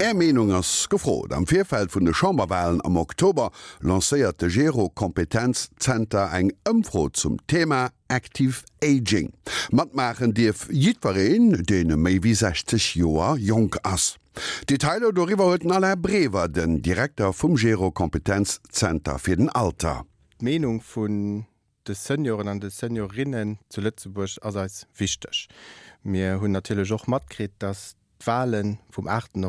Är Meenung ass gefrot. Am Virfeld vun de Chamberwalen am Oktober lancéiert de Gero Kompetenz Zenter eng Ëmfro zum Thema Active Aging. Matmaachen dierf jiddwereen, deen méi wéi 60 Joer jonk ass. Detailer doriwwer huet den Alain Brever, den Direkter vum Gero Kompetenz Zenter fir den Alter. D'Meenung vun de Senioren an de Seniorinnen zu Lëtzebuerg ass eis wichteg. Mir hunn natierlech och matkritt, dass d'Wale vum aachten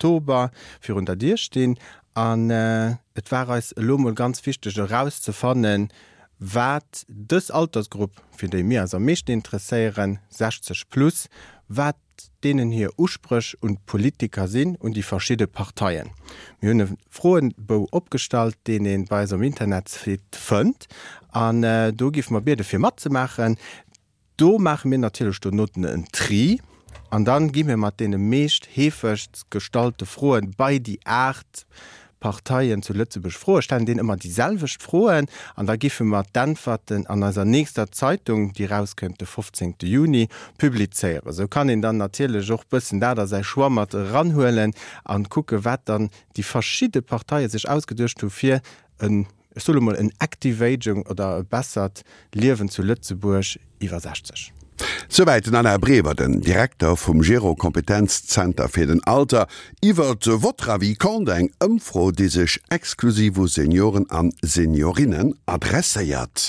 Oktober virun der Dier stinn an et war eis elo mol ganz wichteg erauszefannen, wat dës Altersgrupp, fir déi mir eis am meeschten interesséieren, 60 plus, wat deenen hir Uspréch un d'Politiker sinn, un déi verschidde Parteien. Mir hunn e Froebou opgestallt, deen ee bei eis um Internetsite fënnt an do géife mer biede fir matzemaachen. Do maache mir natierlech dono en Tri an dann gi mir mat deene meescht heefegst gestallte Froen bei déi 8 Parteien zu Lëtzebuerg Froe stellen, deenen ëmmer déi selwecht Froen an da giffe mer d'Äntwerten an eiser nächster Zeitung, déi erauskënnt de 15 Juni, publizéieren. Esou kann een dann natierlech och bëssen dat a säi Choix mat eranhuelen an kucke wat dann déi verschidde Parteie sech ausgeduecht hu fir en ech soe lo mol, en active aging oder e bessert Liewen zu Lëtzebuerg iwwer 60. Souwäit den Alain Brever, den Direkter vum Gero Kompetenzzenter fir den Alter, iwwer Votre avis compte, eng Ëmfro, déi sech exklusiv u Senioren an Seniorinnen adresséiert.